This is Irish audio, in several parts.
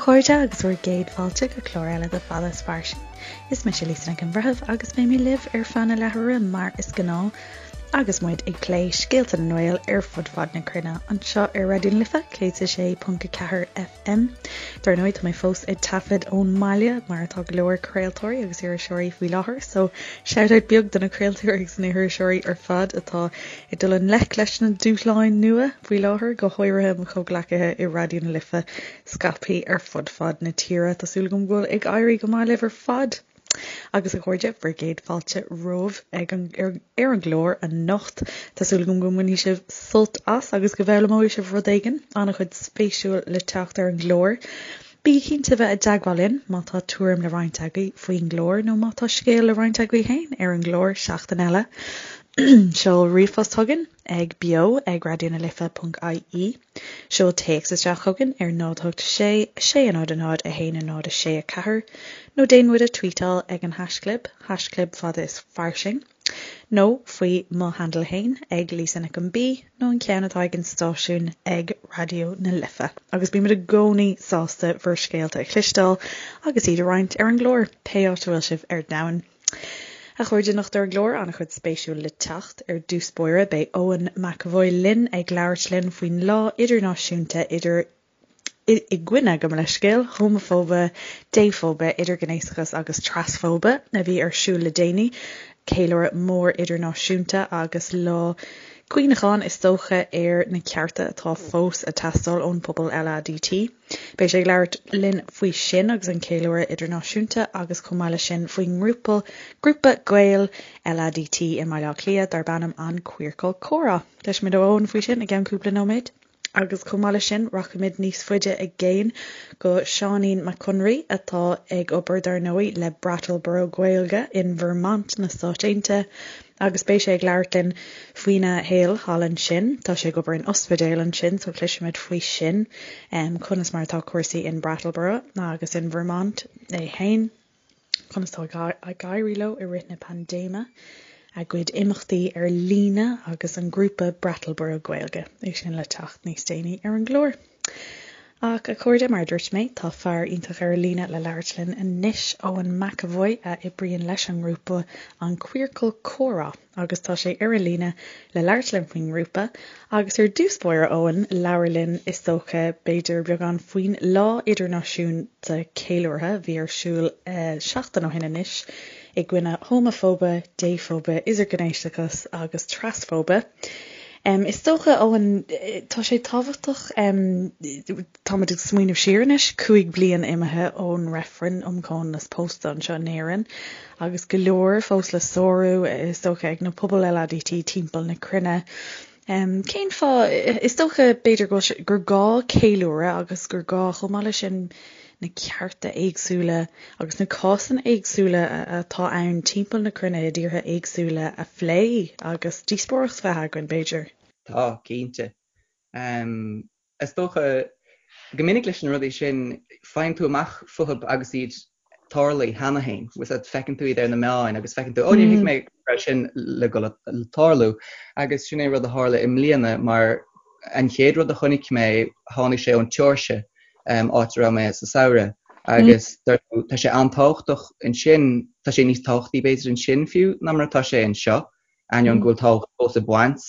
chairde agus bhur gcéad fáilte go clár eile de Fada is Fairsing. Is mise Lisa Nic an Bhreithimh agus beidh mé libh ar feadh na leathuaire mar is gnáth agus muid ag plé scéalta na nGael ar fud fad na cruinne anseo ar Raidió na Life 106.4 FM. Dar ndóigh tá mé fós ag taifead ón mbaile mar atá go leor craoltóirí agus iriseoirí faoi láthair so shout out beag do na craoltóirí agus na hiriseoirí ar fad atá ag dul i ngleic leis na dúshláin nua faoi láthair, go háirithe mo chomhghleacaithe i Raidió na Life scaipthe ar fud fad na tíre. Tá súil agam go bhfuil ag éirí go maith libh ar fad! Agus a chairde, bhur gcéad fáilte romhaibh ag an ar an gclár anocht. Tá súil agam go mbainfidh sibh sult as agus go bhfoghlaimeoidh sibh rud éigin. An-chuid spéisiúil le teacht ar an gclár. Bígí cinnte bheith i dteagmháil linn má tá tuairim le roinnt agaibh faoin gclár nó má tá scéal le roinnt agaibh féin ar an gclár seachtain eile. Seol ríomhphost chugainn ag beo ag raidionalife.ie. Seol téacs isteach chugainn ar 0 8 6 6 0 0 1 0 6 4 nó déan muid a tweetáil ag an haischlib, haischlib fada is fairsing, nó faoi mo handle fhéin ag Lisa Nic an B nó an ceann atá ag an stáisiún ag Raidió na Life. Agus bímid i gcónaí sásta bhur scéalta a chloisteáil agus iad a roinnt ar an gclár, pé áit a bhfuil sibh ar domhan. A chairde, anocht ar an gclár, an-chuid spéisiúil le teacht. Ar dtús báire, beidh Eoin McEvoy linn ag labhairt linn faoin Lá Idirnáisiúnta idir i gcoinne, gabh mo leithscéal, homafóibe, défhóibe, idirghnéasachas agus trasfhóibe a bhí ar siúl le déanaí. Ceiliúradh mór idirnáisiúnta agus lá cuimhneacháin is dócha ar na cearta atá fós ag teastáil ón bpobal LADT. Beidh sé ag labhairt linn faoi sin agus an ceiliúradh idirnáisiúnta agus chomh maith leis sin faoin ngrúpa grúpa Gael LADT i mBaile Átha Cliath darb ainm An Queercal Comhrá. Cloisfimid ó Eoin faoi sin i gceann cúpla nóiméad. Agus chomh maith leis sin rachaimid níos faide i gcéin go Seáinín Mac Conraoi atá ag obair dar ndóigh le Brattleboro Gaeilge in Vermont na Stáit Aontaithe agus beidh sé ag labhairt linn faoina shaol thall ansin. Tá sé ag obair in ospidéal ansin so cloisfimid faoi sin, conas mar atá cúrsaí in Brattleboro agus in Vermont é féin, conas tá ag éirí leo i rith na paindéime, a gcuid imeachtaí ar líne agus an grúpa Brattleboro Gaeilge. É sin le teacht níos déanaí ar an gclár. Ach, a chairde, mar a dúirt mé, tá fear iontach ar an líne le labhairt linn anois, Eoin McEvoy, a oibríonn leis an ngrúpa An Queercal Comhrá, agus tá sé ar an líne le labhairt linn faoin ngrúpa. Agus ar dtús báire, Eoin, labhair linn, is dócha, b'fhéidir, beagán faoin Lá Idirnáisiúnta Ceiliúrtha a bhí ar siúl seachtain ó shin anois, i gcoinne homafóibe, défhóibe, idirghnéasachas agus trasfhóibe. Is dócha, Eoin, tá sé tábhachtach, táimid ag smaoineamh siar anois, 5 bliain imithe ón reifreann um chomhionannas pósta anseo in Éirinn agus go leor fós le sárú, is dócha, ag na pobail LADT timpeall na cruinne. Cén fáth, is dócha, b'fhéidir go bhfuil sé, gur gá ceiliúradh agus gur gá chomh maith leis sin na cearta éagsúla agus na cásanna éagsúla atá ann timpeall na cruinne i dtíortha éagsúla a phlé agus díospóireacht a bheith againn, b'fhéidir. Tá, cinnte. Is dócha, go minic leis na rudaí sin, faigheann tú amach fúthu agus iad tarlaithe cheana féin. Bhfuil a fhios agat, feiceann tú iad ar na meáin agus feiceann tú, 'Ó, níor thuig mé go raibh sin le dul le tarlú. Agus sin é rud a tharla i mbliana mar an chéad rud a chonaic mé, tháinig sé ón tSeoirsia, áit a raibh mé sa samhradh. Agus tá sé an-tábhachtach ansin, tá sé níos tábhachtaí b'fhéidir ansin fiú ná mar atá sé anseo, ainneoin go bhfuil tábhacht fós ag baint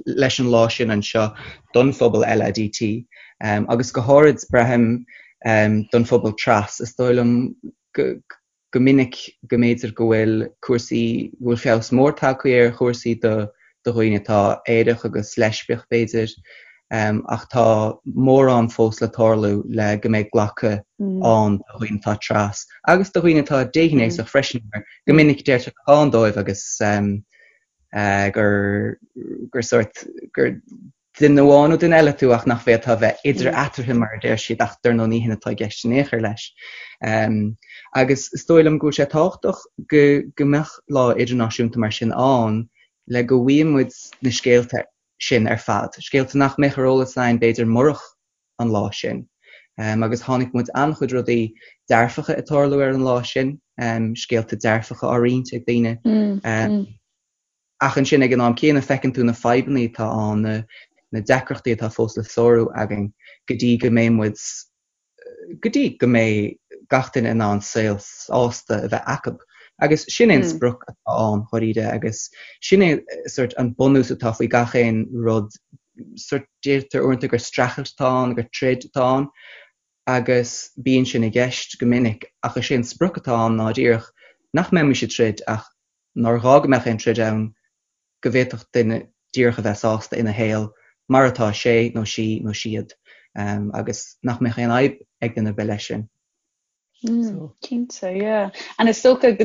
leis an lá sin anseo don phobal LADT agus go háirid, braithim, don phobal tras. Is dóigh liom go minic go mb'fhéidir go bhfuil cúrsaí, go bhfuil feabhas mór tagtha ar chúrsaí do dhaoine atá aerach agus leispiach b'fhéidir, ach tá mórán fós le tarlú le go mbeidh glacadh ann do dhaoine atá tras agus do dhaoine atá déghnéasach freisin mar go minic deirtear atá ann dóibh agus gur gur sórt gur duine amháin nó duine eile tú ach nach bhféadfá a bheith idir eatarthu mar a deir siad ach dar ndóigh ní hin atá i gceist in aon chor leis. Agus is dóigh liom go bhfuil sé tábhachtach go go mbeadh lá idirnáisiúnta mar sin ann le go bhfaigheadh muid na scéalta sin ar fad, scéalta nach mbeadh ar eolas againn b'fhéidir murach an lá sin. Agus chonaic muid an-chuid rudaí dearfacha ag tarlú ar an lá sin, scéalta dearfacha á roinnt ag daoine. Ach ansin ag an am céanna feiceann tú na fadhbanna atá ann, na deacrachtaí atá fós le sárú againn go dtí go mbeidh muid. go dtí go mbeidh gach duine in ann saol sásta a bheith acu. Agus sin é an sprioc atá ann, dháiríre, agus sin é sort an bunús atá faoi gach aon rud. Sort deirtear uaireanta gur streachailt atá ann, gur troid atá ann, agus bíonn sin i gceist go minic, ach is é an sprioc atá ann ná díreach nach mbeimis ag troid ach nár ghá go mbeadh aon troid ann, go bhféadfadh duine díreach a bheith sásta ina shaol mar atá sé nó sí nó siad agus nach mbeadh aon fhadhb ag duine ar bith leis sin. Cinnte, yeah. And is dócha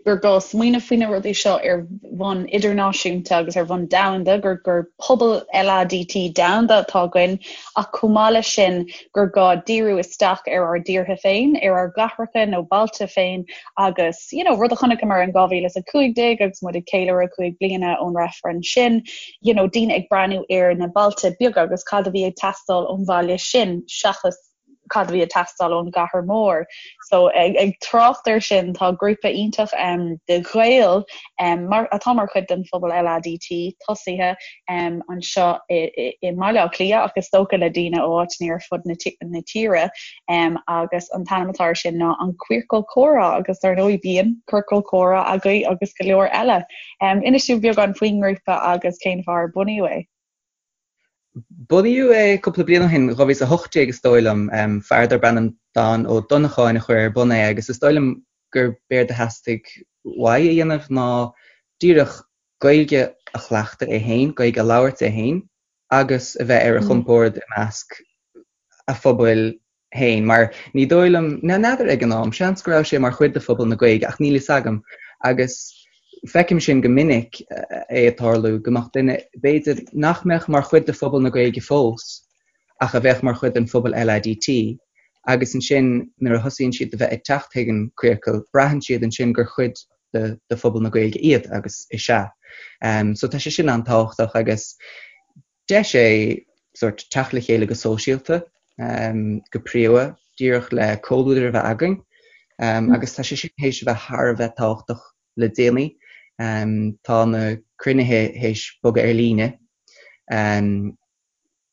gur gá smaoineamh faoi na rudaí seo ar bhonn idirnáisiúnta agus ar bhonn domhanda, gur gur pobal LADT domhanda atá againn, ach chomh maith leis sin gur gá díriú isteach ar ár dtíortha féin, ar ár gcathracha nó bailte féin agus, you know, rud a chonaiceamar in 2015 agus muid ag ceiliúradh 5 bliana ón reifreann sin, you know, daoine ag breathnú ar na bailte beaga agus cad a bhí ag teastáil ón bhaile sin seachas cad a bhí ag teastáil ón gcathair mhór. So ag, ag trácht air sin tá grúpa iontach um, de Ghaeil um, mar, atá mar chuid den phobal LADT tosaithe um, anseo i, i, i mBaile Átha Cliath ach is dócha le daoine ó áiteanna ar fud na, na tíre um, agus an t-ainm atá air sin ná an Queercal Comhrá agus dar ndóigh bíonn Ciorcal Comhrá agaibh agus go leor eile. Um, inis dúinn beagán faoin ngrúpa agus cén fáth ar bunaíodh é. Bunaíodh é cúpla bliain ó shin, 2018 is dóigh liom. Fear darb ainm Dan Ó Donnacháin a chuir ar bun é agus is dóigh liom gur b'éard a theastaigh uaidh a dhéanamh ná díreach Gaeilge a chleachtadh é féin, Gaeilge a labhairt é féin agus a bheith ar a chompord i measc a phobail féin, mar ní dóigh liom, n'fheadar ag an am, seans go raibh sé mar chuid de phobal na Gaeilge ach níl fhios agam agus feicim sin go minic é ag tarlú, go mbeadh duine, b'fhéidir, nach mbeadh mar chuid de phobal na Gaeilge fós ach a bheadh mar chuid den phobal LADT agus ansin nuair a thosaíonn siad a bheith ag teacht chuig an Queercal, braitheann siad ansin gur chuid de de phobal na Gaeilge iad agus is ea. So tá sé sin an-tábhachtach agus Deis é sórt teacht le chéile go sóisialta, go príomha, díreach le comhluadar a bheith againn agus tá sé sin théis a bheith thar a bheith tábhachtach le déanaí. Tá na cruinnithe théis bogadh ar líne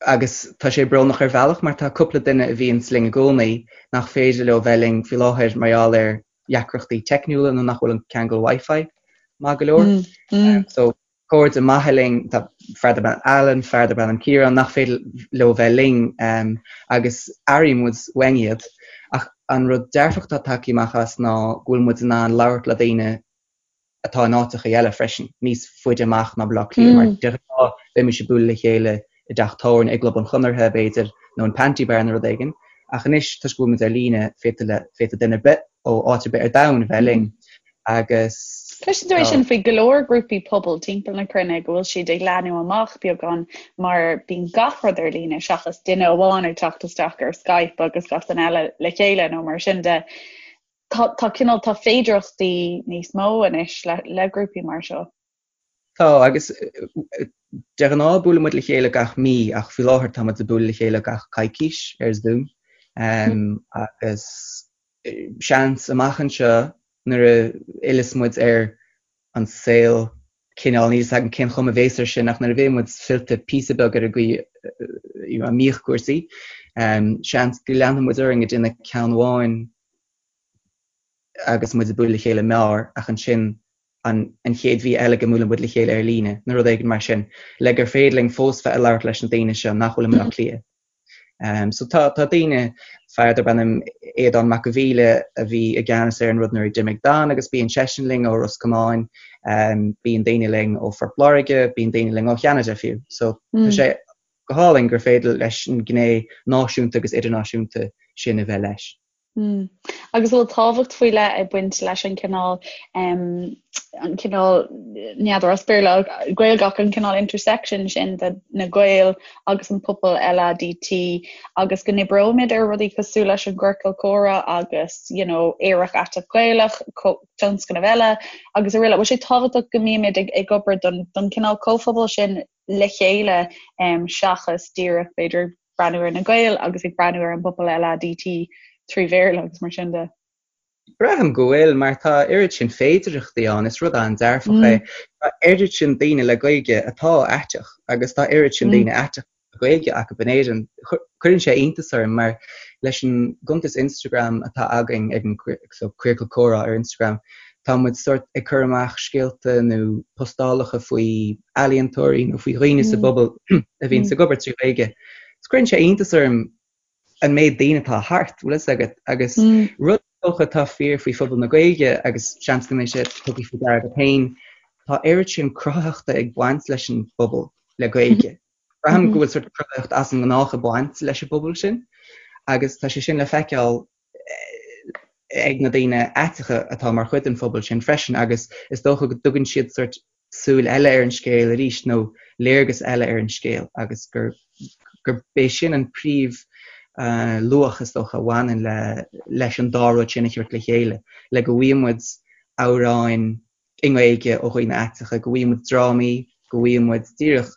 agus tá sé brónach ar bhealach mar tá cúpla duine a bhíonns linn i gcónaí nach féidir leo bheith linn faoi láthair mar gheall ar dheacrachtaí teicniúla nó nach bhfuil an ceangal Wi-Fi maith go leor. So cairde maithe linn, tá fear darb ainm Alan, fear darb ainm Ciarán, nach féidir leo bheith linn agus airíonn muid uainn iad. Ach an rud dearfach atá tagtha amach as ná go bhfuil muid in ann labhairt le daoine atá in áiteacha eile freisin, níos faide amach ná Baile Átha Cliath, mar de ghnáth bheimis ag bualadh le chéile i dteach tábhairne, i gClub an Chonartha, b'fhéidir, nó in Panti Bar nó rud éigin. Ach anois, toisc go bhfuil muid ar líne, féadfaidh duine ar bith ó áit ar bith ar domhan a bheith linn. Agus. Cloiseann tú é sin faoi go leor grúpaí pobail timpeall na cruinne go bhfuil siad ag leathnú amach beagán mar bíonn gach rud ar líne seachas duine amháin ag teacht isteach ar Skype agus gach duine eile le chéile nó mar sin de. Tá tá cineál tá féidearthachtaí níos mó anois le le grúpaí mar seo. Tá, agus de ghnáth buaileann muid le chéile gach mí ach faoi láthair tá muid ag bualadh le chéile gach coicís ar Zoom agus seans amach anseo nuair a fhilleas muid ar an saol cineál, níl 'fhios agam cén chuma a bhéas air sin ach nuair a bheidh muid fillte píosa beag ar an gcaoi a mbíodh cúrsaí, seans go leanfaidh muid orainn ag déanamh ceann amháin agus muid ag bualadh le chéile i mbeár ach ansin an an chéad mhí eile go mbuaileann muid le chéile ar líne nó rud éigin mar sin le gur féidir linn fós bheith ag labhairt leis na daoine seo nach bhfuil i mBaile Átha Cliath. So tá tá daoine, fear darb ainm Aodán Mac a' Mhíle a bhí i gceannas ar an rud nuair a d'imigh Dan agus bíonn seisean linn ó Ros Comáin, bíonn daoine linn ó Phort Láirge, bíonn daoine linn ó Cheanada fiú. So tá sé go hálainn gur féidir leis an ghné náisiúnta agus idirnáisiúnta sin a bheith leis. Mm. Agus bhfuil tábhacht faoi leith ag baint leis an cineál an cineál n'fheadar as Béarla Gaeilge ach an cineál intersection sin de na Gaeil agus an pobal LADT agus go n-oibreoimid ar rudaí cosúil leis an gciorcal comhrá agus you know, Aerach Aiteach Gaelach, tionscnamh eile agus araile. Bhfuil sé tábhachtach go mbímid ag, ag obair don, don cineál comhphobal sin le chéile um, seachas díreach b'fhéidir breathnú ar na Gaeil agus ag breathnú ar an bpobal LADT trí Bhéarla agus mar sin de. Braithim go bhfuil, mar tá oiread sin féidearthachtaí ann, is rud an-dearfach é. Tá oiread sin daoine le Gaeilge atá aiteach agus tá oiread sin daoine aiteacha. Gaeilge acu in Éirinn, cuireann sé iontas orm mar leis an gcuntas Instagram atá againn ag an so Queercal Comhrá ar Instagram, tá muid sórt ag cur amach scéalta nó postálacha faoi ealaíontóirí nó faoi dhaoine sa bpobal a bhíonns ag obair trí Ghaeilge. So cuireann sé iontas orm an méid daoine atá thart, bhfuil fhios agat, agus rud is dócha atá fíor faoi phobal na Gaeilge agus seans go mbeidh sé tugtha faoi deara agat féin, tá oiread sin cruthaitheachta ag baint leis an bpobal le Gaeilge. Braithim go bhfuil sort cruthaitheacht as an ngnách ag baint leis an bpobal sin agus tá sé sin le feiceáil ag na daoine aiteacha atá mar chuid den phobal sin freisin agus is dócha go dtugann siad sort súil eile ar an scéal arís nó léargas eile ar an scéal agus gur gurb é sin an príomh luach is dócha a bhaineann le leis an dá rud sin a thabhairt le chéile, le go bhfaighidh muid amhráin i nGaeilge ó dhaoine aiteacha, go bhfaighidh muid drámaí, go bhfaighidh muid díreach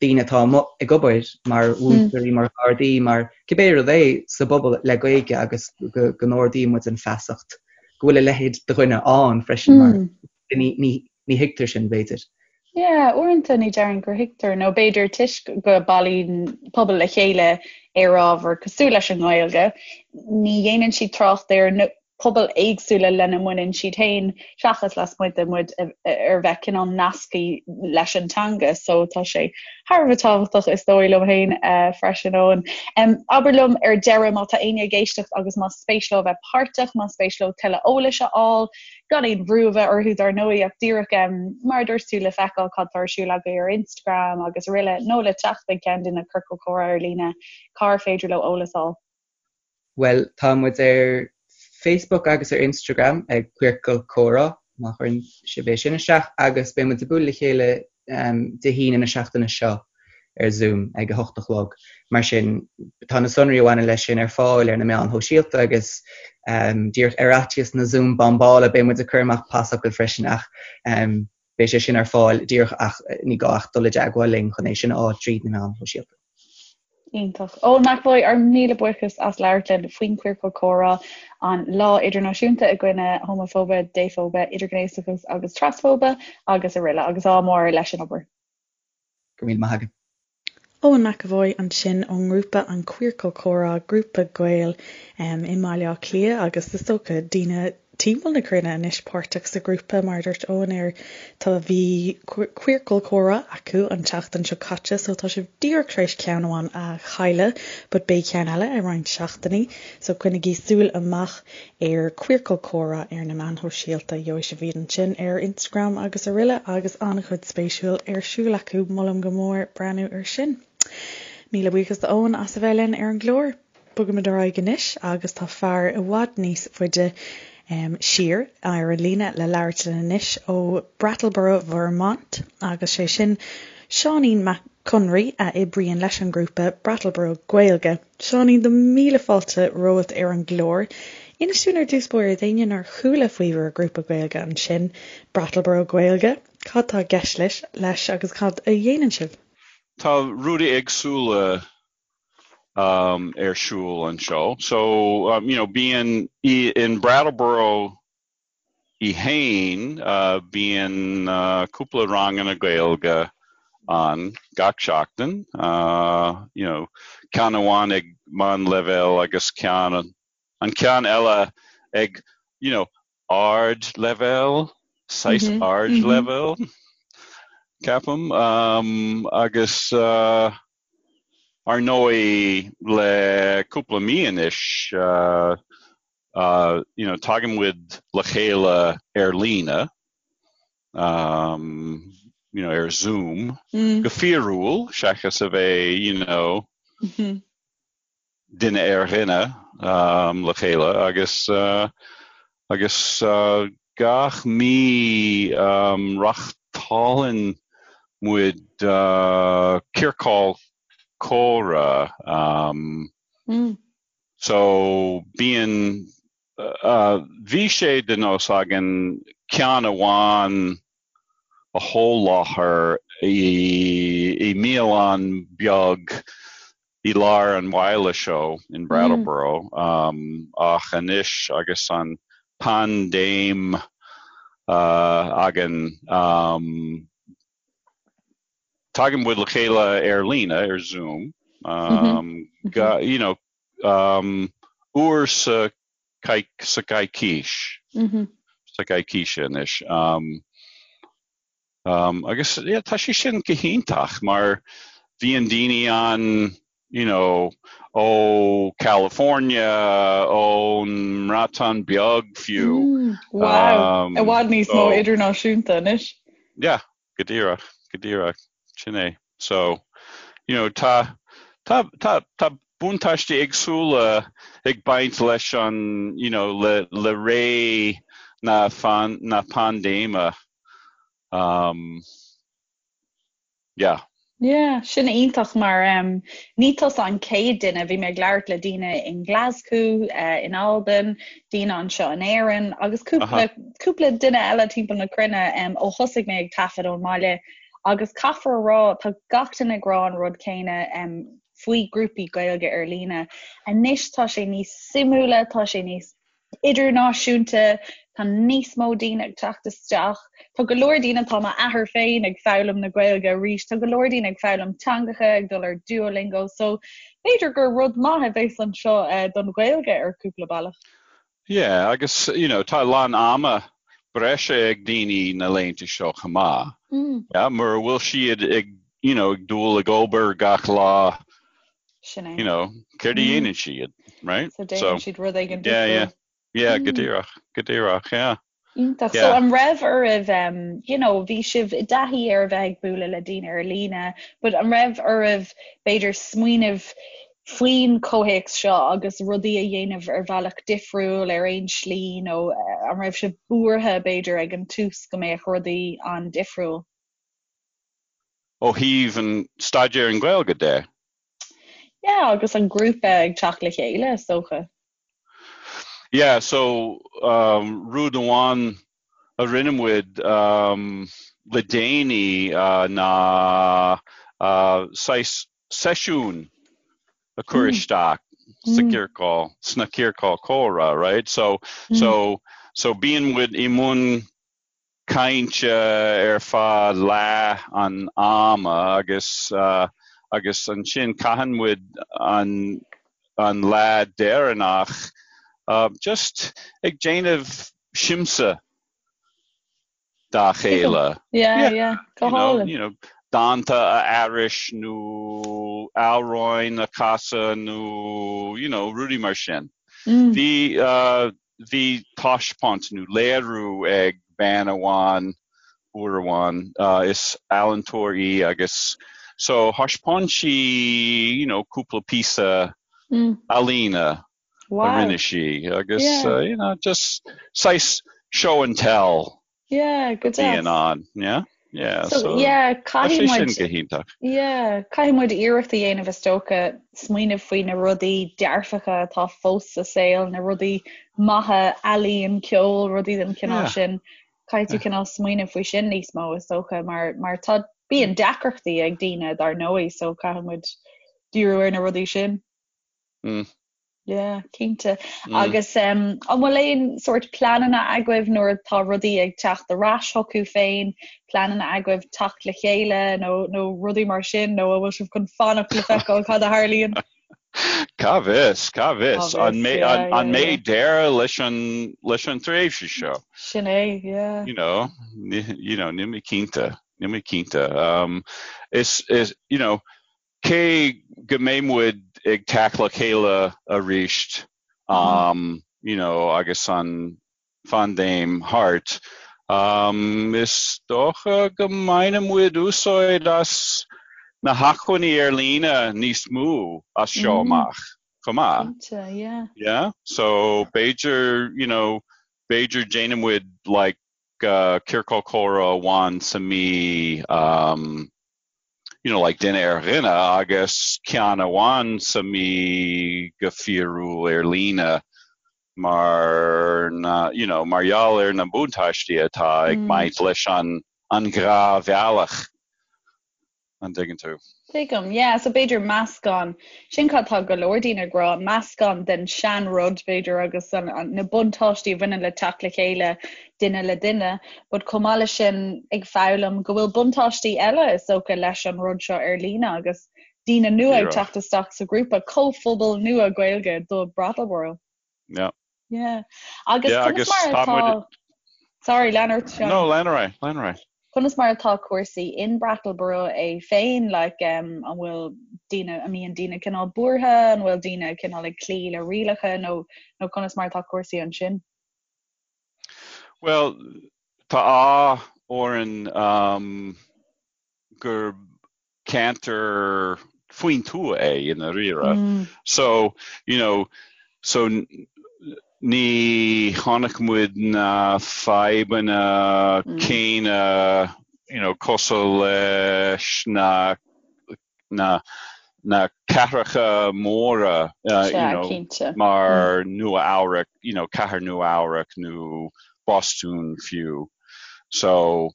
daoine atá amuigh ag obair mar mhúinteoirí, mar ghardaí, mar cibé rud é sa bpobal le Gaeilge agus go n-ardaíonn muid an feasacht go bhfuil a leithéid de dhuine ann freisin mar ní thuigtear sin b'fhéidir. Yeah, uaireanta ní déarfainn gur thuigtear nó b'fhéidir toisc go bailíonn pobal le chéile ar ábhar cosúil leis an nGaeilge, ní dhéanann siad trácht ar pobail éagsúla lena mbaineann siad féin seachas lasmuigh de muid ar bheith cineál nasctha leis an teanga so tá sé thar a bheith tábhachtach is dóigh liom féin freisin Eoin. Abair liom ar deireadh má tá éinne ag éisteacht agus más spéis leo a bheith páirteach, más spéis leo tuilleadh eolais a fháil, gan aon bhrú a bheith orthu dar ndóigh ach díreach mar a dúirt tú le feiceáil cad tá ar siúl agaibh ar Instagram agus araile nó le teacht ag ceann de na ciorcail chomhrá ar líne, cár féidir leo eolas a fháil? Bhuel, tá muid ar Facebook agus ar Instagram ag Queercal Comhrá, má chuireann sibh é sin isteach, agus beidh muid ag bualadh le chéile Dé hAoine na seachtaine seo ar Zoom ag a hocht a chlog. Mar sin, tá na sonraí a bhaineann leis sin ar fáil ar na meáin shóisialta agus díreach ar fhaitíos na Zoom bombála beidh muid ag cur amach pasfhocal freisin ach beidh sé sin ar fáil díreach ach ní gá ach dul i dteagmháil linn chun é sin a fháil tríd na meáin shóisialta. Iontach. Eoin McEvoy, ár míle buíochas as labhairt linn faoin Chiorcal Comhrá, an Lá Idirnáisiúnta i gcoinne Homafóibe, Défhóibe, Idirghnéasachas agus Trasfóibe agus araile agus ádh mór leis an obair. Go raibh míle maith agat. Eoin McEvoy ansin ón ngrúpa An Queercal Comhrá, grúpa Gael i mBaile Átha Cliath agus is dócha daoine timpeall na cruinne anois páirteach sa ghrúpa, mar a dúirt Eoin ar tá bhí Queercal Comhrá acu an tseachtain seo caite so tá sibh díreach tar éis ceann amháin a chailleadh but beidh ceann eile i roinnt seachtainí so coinnigí súil amach ar Queercal Comhrá ar na meáin shóisialta, gheobhaidh sibh iad ansin ar Instagram agus araile agus an-chuid spéisiúil ar siúl acu, molaim go mór breathnú ar sin. Míle buíochas do Eoin as a bheith linn ar an gclár. Bogaimid ar aghaidh anois agus tá fear i bhfad níos faide siar ar an líne le labhairt linn anois ó Brattleboro, Vermont agus sé sin Seáinín Mac Conraoi a oibríonn leis an ngrúpa Brattleboro Gaeilge. Seáinín, do mhíle fáilte romhat ar an gclár. Inis dúinn ar dtús báire d'éinne nár chuala faoi bhur grúpa Gaeilge ansin, Brattleboro Gaeilge, cad tá i gceist leis agus cad a dhéanann sibh? Tá rudaí éagsúla um, ar siúl anseo. So, um, you know, bíonn in Brattleboro í fhéin, uh, bíonn uh, cúpla ranganna Gaeilge ann gach seachtain, uh, you know, ceann amháin ag meánleibhéal agus ceann an ceann eile ag you know, ardleibhéal, saghas ardleibhéal, ceapaim, um, agus uh, Ar ndóigh, le cúpla mí anois, you know, tagann muid le chéile ar líne, you know, ar Zoom, go fíorúil, seachas a bheith, you know, duine ar dhuine le chéile agus agus gach mí reáchtálann muid ciorcal comhrá so bíonn bhí sé de nós againn ceann amháin a sholáthar i mbialann beag i lár an bhaile seo in Brattleboro ach anois agus an paindéim againn. Tagann muid le chéile ar líne, ar Zoom, you know, uair sa sa gcoicís, sa gcoicís anois. Agus yeah, tá sé sin go hiontach mar bhíonn daoine ann, you know, ó California, ón mBreatain Bheag fiú. Wow, i bhfad níos mó idirnáisiúnta anois. Yeah, Go díreach, go díreach, sin é. So, you know, tá, tá, tá, tá buntáistí éagsúla ag baint leis an, you know, le, le ré na, na paindéime. Um, yeah. Yeah, sin iontach mar um, ní tusa an chéad duine, bhí mé ag labhairt le daoine in Glasgow, uh, in Albain, daoine anseo in Éirinn agus cúpla, cúpla duine eile timpeall na cruinne um, ó thosaigh mé ag taifead ón mbaile agus caithfear a rá tá gach duine ag rá an rud céanna um, faoi grúpaí Gaeilge ar líne. Anois tá sé níos suimiúla, tá sé níos idirnáisiúnta, tá níos mó daoine ag teacht isteach, tá go leor daoine, tá m'athair féin ag foghlaim na Gaeilge arís, tá go leor daoine ag foghlaim teangacha, ag dul ar Duolingo, so b'fhéidir gur rud maith a bheas anseo eh, don Ghaeilge ar cúpla bealach. Yeah, agus you know, tá a lán ama breise ag daoine na laethanta seo chomh maith. Mm. Yeah, mura bhfuil siad ag you know, ag dul ag obair gach lá Sin é. You know, céard a mm. dhéanann siad, right? So déanann siad rud éigin Yeah, yeah. Yeah, go mm. díreach, go díreach, yeah. Iontach. So an raibh oraibh, um, you know, bhí sibh i dtaithí ar a bheith ag bualadh le daoine ar líne, but an raibh oraibh b'fhéidir smaoineamh faoin chomhthéacs seo agus rudaí a dhéanamh ar bhealach difriúil ar aon slí nó eh, an raibh sibh buartha b'fhéidir ag an tús go mbeadh rudaí an-difriúil? Ó thaobh an staidéar an Ghaeilge de. Yeah, agus an grúpa ag teacht le chéile, is dócha. Yeah, so um, rud amháin a rinne muid um, le déanaí uh, ná uh, saghas seisiún a chur mm. isteach sa mm. ciorcal, sna ciorcal comhrá, right? So, mm. so, so bíonn muid i mbun cainte ar feadh leath an ama agus agus ansin caitheann muid an an lá deireanach just ag déanamh siamsa dá chéile. Yeah, yeah, go hálainn. You know, dánta a aithris nó amhráin a chasadh nó you know, rudaí mar sin. Bhí Bhí taispeáint nó léiriú ag bean amháin uair amháin, is ealaíontóir í agus so thaispeáin sí you know cúpla píosa ealaíne a rinne sí agus you know just saghas show and tell. Yeah, go deas. Bíonn ann, yeah. Yeah, so, so yeah, caithfidh muid sin go hiontach. Yeah, caithfidh muid iarracht a dhéanamh is dócha smaoineamh faoi na rudaí dearfacha atá fós sa saol, na rudaí maithe, ealaíon, ceol, rudaí den chineál yeah. sin. Caithfidh tú cineál smaoineamh faoi sin níos mó is dócha mar mar tá bíonn deacrachtaí ag daoine dar ndóigh, so caithfidh muid díriú ar na rudaí sin. Mm. Yeah, cinnte. Mm. Agus um, an bhfuil aon sórt pleananna agaibh nuair atá rudaí ag teacht ar ais chucu féin, pleananna agaibh teacht le chéile nó, nó rudaí mar sin nó an bhfuil sibh chun fanacht le feiceáil cad a tharlaíonn? Cá bhfios, cá bhfios. An mbeidh deireadh leis an, leis an tréimhse seo? Sin é, yeah. You know, you know, níl mé cinnte, níl mé cinnte. Um, is, is, you know, Cé go mbeidh muid ag teacht le chéile arís, you know, agus an phaindéim thart, is dócha go mbainfidh muid úsáid as na hacmhainní ar líne níos mó as seo amach chomh maith. Cinnte, yeah. Yeah, so b'fhéidir, you know, b'fhéidir déanfaidh muid like ciorcal comhrá amháin sa mí, you know, like duine ar dhuine agus ceann amháin sa mí go fíorúil ar líne mar na, you know, mar gheall ar na buntáistí atá ag baint leis an an dhá bhealach. An dtuigeann tú? Tuigim, yeah, so b'fhéidir meascán, sin cad tá go leor daoine ag rá, meascán den sean-rud b'fhéidir agus an, an, na buntáistí a bhaineann le teacht le chéile duine le duine, but chomh maith leis sin ag foghlaim go bhfuil buntáistí eile is dócha leis an rud seo ar líne agus daoine nua ag teacht isteach sa ghrúpa, comhphobal nua Gaeilge do Brattleboro. Yeah. Yeah. Agus yeah, conas mar atá... Sorry, lean ort, Seán. No, lean ar aghaidh, lean ar aghaidh. Conas mar atá cúrsaí in Brattleboro é féin, like, um, an bhfuil daoine, an mbíonn daoine cineál buartha, an bhfuil daoine cineál ag cloí le rialacha nó, nó conas mar atá cúrsaí ansin? Well, tá ádh orainn um, gur ceantar faoin tuath é i ndáiríre. So, you know, so ní chonaic muid na fadhbanna céanna, you know, cosúil leis na, na, na cathracha móra, you know, mar Nua Eabhrac, you know, cathair Nua Eabhrac nó Bostún fiú. So,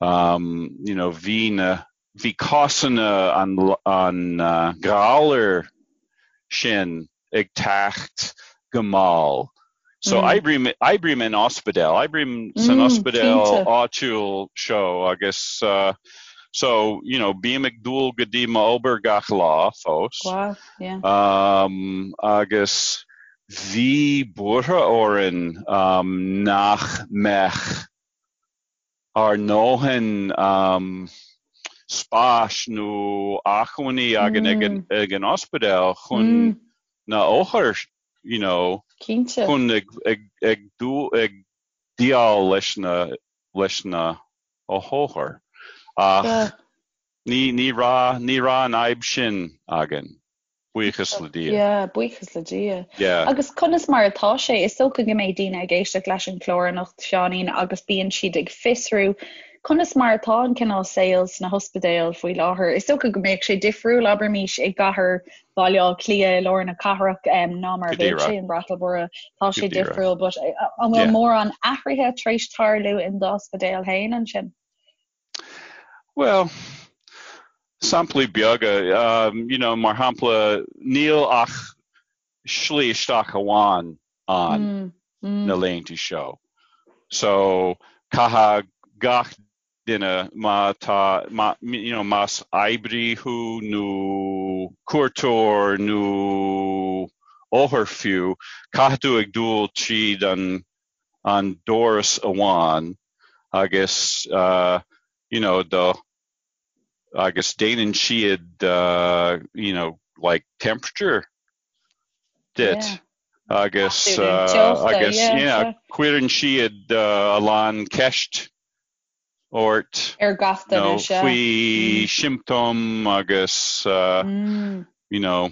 um, you know, bhí na, bhí cásanna an, an ghalair sin ag teacht go mall. So mm. oibrím, oibrím in ospidéal, oibrím san mm, ospidéal áitiúil seo agus uh, so, you know, bím ag dul go dtí m'obair gach lá fós. Wow, yeah. Um, agus bhí buartha orainn um, nach mbeadh ár ndóthain spáis nó acmhainní againn ag an ospidéal chun na othair you know chun ag ag ag déileáil leis na leis na othair ach ní ní raibh ní raibh an fhadhb sin againn. Buíochas le Dia. Yeah, buíochas le Dia. Yeah. Agus conas mar atá sé? Is dócha go mbeidh daoine ag éisteacht leis an chlár anocht, Seáinín, agus bíonn siad ag fiosrú conas mar atá an cineál saoil sna hospidéil faoi láthair. Is dócha go mbeadh sé difriúil, abraimís, i gcathair Bhaile Átha Cliath i lár na cathrach ná mar a bheadh sé in Brattleboro. Tá sé difriúil, but an bhfuil mórán athruithe tar éis tarlú in d'ospidéal féin ansin? Bhuel, samplaí beaga, you know, mar shampla, níl ach slí isteach amháin ann na laethanta seo. So, caithfidh gach duine má tá, má, you know, más oibrí thú nó cuairteoir nó othar fiú, caithfidh tú ag dul tríd an an doras amháin agus you know do agus déanann siad you know like temperature duit agus agus yeah cuireann siad a lán ceist ort ar gach duine sea faoi siomptóim agus you know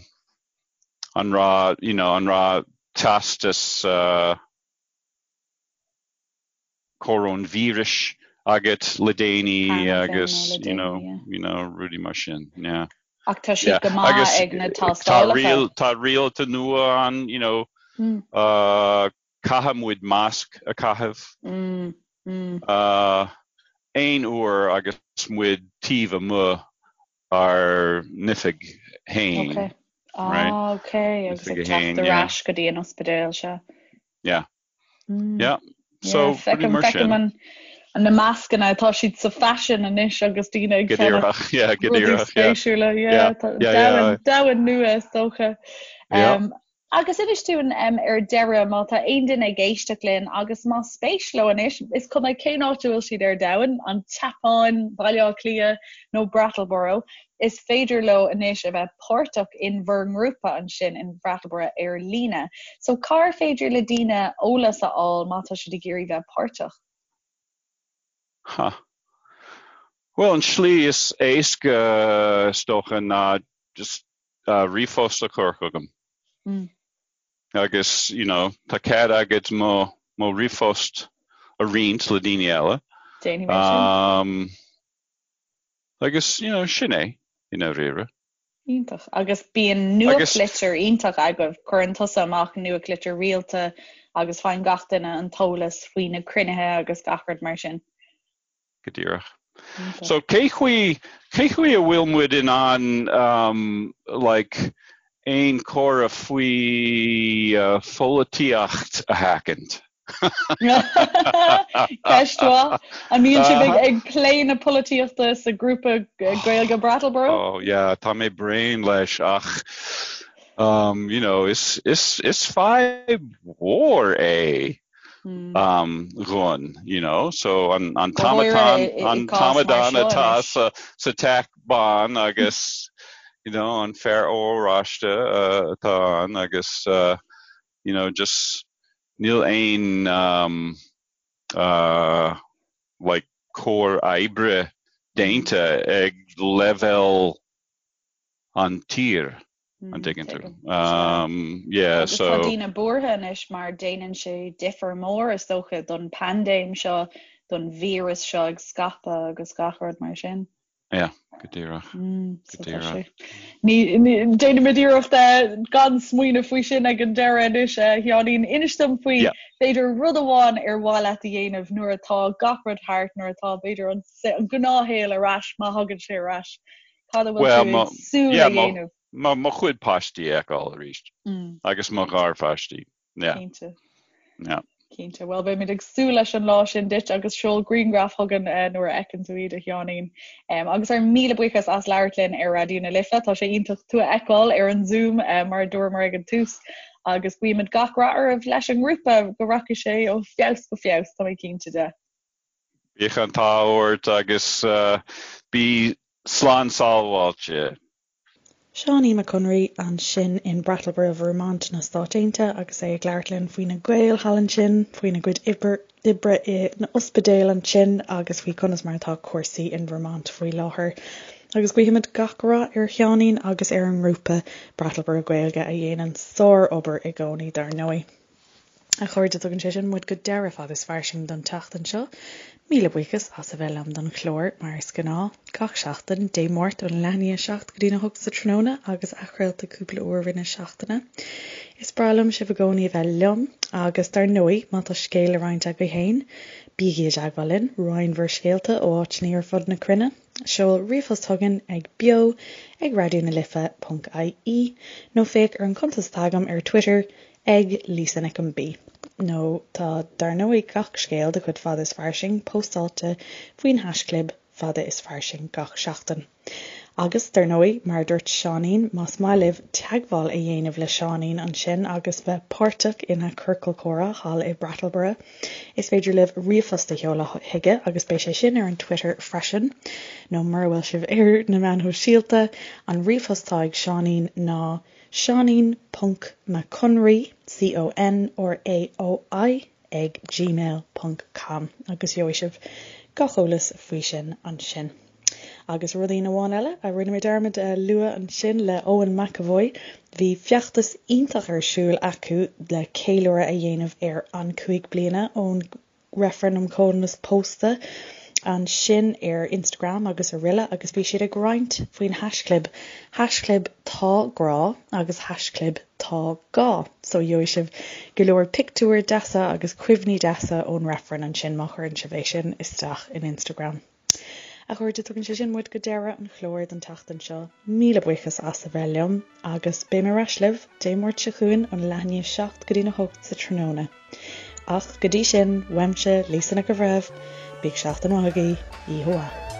an raibh you know an raibh teastas coróinvíris agat le déanaí agus you know you know rudaí mar sin yeah. Ach tá siad go maith ag na tástálacha. Tá rialacha nua ann you know uh, caithfidh muid masc a chaitheamh uh, aon uair agus muid taobh amuigh ár n-oifig fhéin. Okay. Ah, okay. Agus ag teacht ar ais go dtí an ospidéal seo. Yeah. Mm. Yeah. So, yeah, mar sin. An, na mascanna tá siad sa faisean anois agus daoine ag ceannach yeah, go díreach, spéisiúla yeah. Yeah, yeah, domhan nua is dócha. Um, Agus inis dúinn ar deireadh, má tá aon duine ag éisteacht linn agus más spéis leo anois, is cuma cén áit a bhfuil siad ar domhan, an tSeapáin, Baile Átha Cliath nó Brattleboro, is féidir leo anois a bheith páirteach in bhur ngrúpa ansin in Brattleboro ar líne. So cár féidir le daoine eolas a fháil má tá siad ag iarraidh bheith páirteach? Ha. Bhuel, an tslí is éasca is dócha ná just ríomhphost a chur chugam. Agus, you know, tá cead agat mo, mo ríomhphost a roinnt le daoine eile. Déanfaidh mé sin. Agus, you know, sin é, i ndáiríre. Iontach. Agus bíonn nuachtlitir iontach agaibh, cuireann tusa amach nuachtlitir rialta agus faigheann gach duine an t-eolas faoi na cruinnithe agus gach rud mar sin. Go díreach. So cé chaoi, cé chaoi a bhfuil muid in ann um, like, aon chomhrá faoi uh, pholaitíocht a sheachaint? Ceist mhaith. An mbíonn sibh ag, ag plé na polaitíochta sa grúpa Gaeilge Brattleboro? Oh yeah, tá mé bréan leis ach um, you know, is, is, is fadhb mhór é. um, dhúinn, you know, so an, an t-amadán, an t-amadán atá sa, sa Teach Bán agus, you know, an fear oráiste uh, atá ann agus, uh, you know, just níl aon um, uh, like cóir oibre déanta ag leibhéal an tír. An dtuigeann tú? Yeah, Agus tá daoine buartha anois mar déanann sé difear mór is dócha don paindéim seo, don víreas seo ag scaipeadh agus gach rud mar sin. Yeah, go díreach. Go díreach. Déanaimid iarracht gan smaoineamh faoi sin ag an deireadh anois, a Sheáinín. Inis dom faoi, b'fhéidir, rud amháin ar mhaith leat a dhéanamh nuair atá gach rud thart, nuair atá, b'fhéidir, an gnáthshaol ar ais, má thagann sé ar ais. Cad a bhfuil tú ag súil a dhéanamh? Mo chuid páistí a fheiceáil arís agus mo gharpháistí. Cinnte. Cinnte. Bhuel, beimid ag súil leis an lá sin duit agus seol grianghraf chugainn nuair a fheiceann tú iad, a Sheáinín. Agus ár míle buíochas as labhairt linn ar Raidió na Life. Tá sé iontach tú a fheiceáil ar an Zoom mar a dúramar ag an tús. Agus guímid gach rath oraibh leis an ngrúpa, go rachaidh sé ó feabhas go feabhas, tá mé cinnte de. Bíodh an t-ádh ort agus bí slán sábháilte. Seáinín Mac Conraoi ansin in Brattleboro, Vermont na Stáit Aontaithe agus é ag labhairt linn faoi na Gaeil thall ansin, faoina gcuid oibre in ospidéal ansin agus faoi conas mar atá cúrsaí in Vermont faoi láthair. Agus guímid gach rath ar Sheáinín agus ar an ngrúpa Brattleboro Gaeilge a dhéanann sár-obair i gcónaí dar ndóigh. A chairde, tugann sé sin muid go deireadh Fada is Fairsing don tseachtain seo. Míle buíochas as a bheith liom don chlár, mar is gnáth, gach seachtain, Dé Máirt ón leath i ndiaidh a 7 go dtí'n 8 sa tráthnóna agus athchraolta cúpla uair i rith na seachtaine. Is breá liom sibh i gcónaí a bheith liom agus dar ndóigh, má tá scéal le roinnt agaibh féin, bígí i dteagmháil linn, roinn bhur scéalta ó áiteanna ar fud na cruinne. Seol ríomhphost chugainn ag beo ag raidió na life ponc ie nó féach ar an chuntas atá agam ar Twitter ag Lisa Nic an B. Nó tá dar ndóigh gach scéal de chuid Fada is Fairsing póstáilte faoin haischlib Fada is Fairsing gach seachtain. Agus dar ndóigh, mar a dúirt Seáinín, más maith libh teagmháil a dhéanamh le Seáinín ansin agus bheith páirteach ina chiorcal comhrá thall i Brattleboro, is féidir libh ríomhphost a sheoladh chuige agus beidh sé sin ar an Twitter freisin, nó mura bhfuil sibh ar na meáin shóisialta, an ríomhphost atá ag Seáinín ná. Seáinín ponc Mac Conraoi, C-O-N-R-A-O-I, ag gmail ponc com agus gheobhaidh sibh gach eolas faoi sin ansin. Agus rudaí amháin eile a rinne mé dearmad a lua ansin le Eoin McEvoy, bhí feachtas iontach ar siúl acu le ceiliúradh a dhéanamh ar an 5 bliana ón reifreann um chomhionannas pósta ansin ar Instagram agus araile agus bhí siad ag roinnt faoin haischlib haischlib tá grá agus haischlib tá gá so gheobhaidh sibh go leor pictiúir deasa agus cuimhní deasa ón reifreann ansin má chuireann sibh é sin isteach in Instagram. A chairde, tugann sé sin muid go deireadh an chláir don tseachtain seo. Míle buíochas as a bheith liom agus beidh mé ar ais libh Dé Máirt seo chugainn ón leath i ndiaidh 7 go dtí'n 8 sa tráthnóna. Ach go dtí sin, uaimse, Lisa Nic an Bhreithimh, bíodh seachtain mhaith agaibh, oíche mhaith.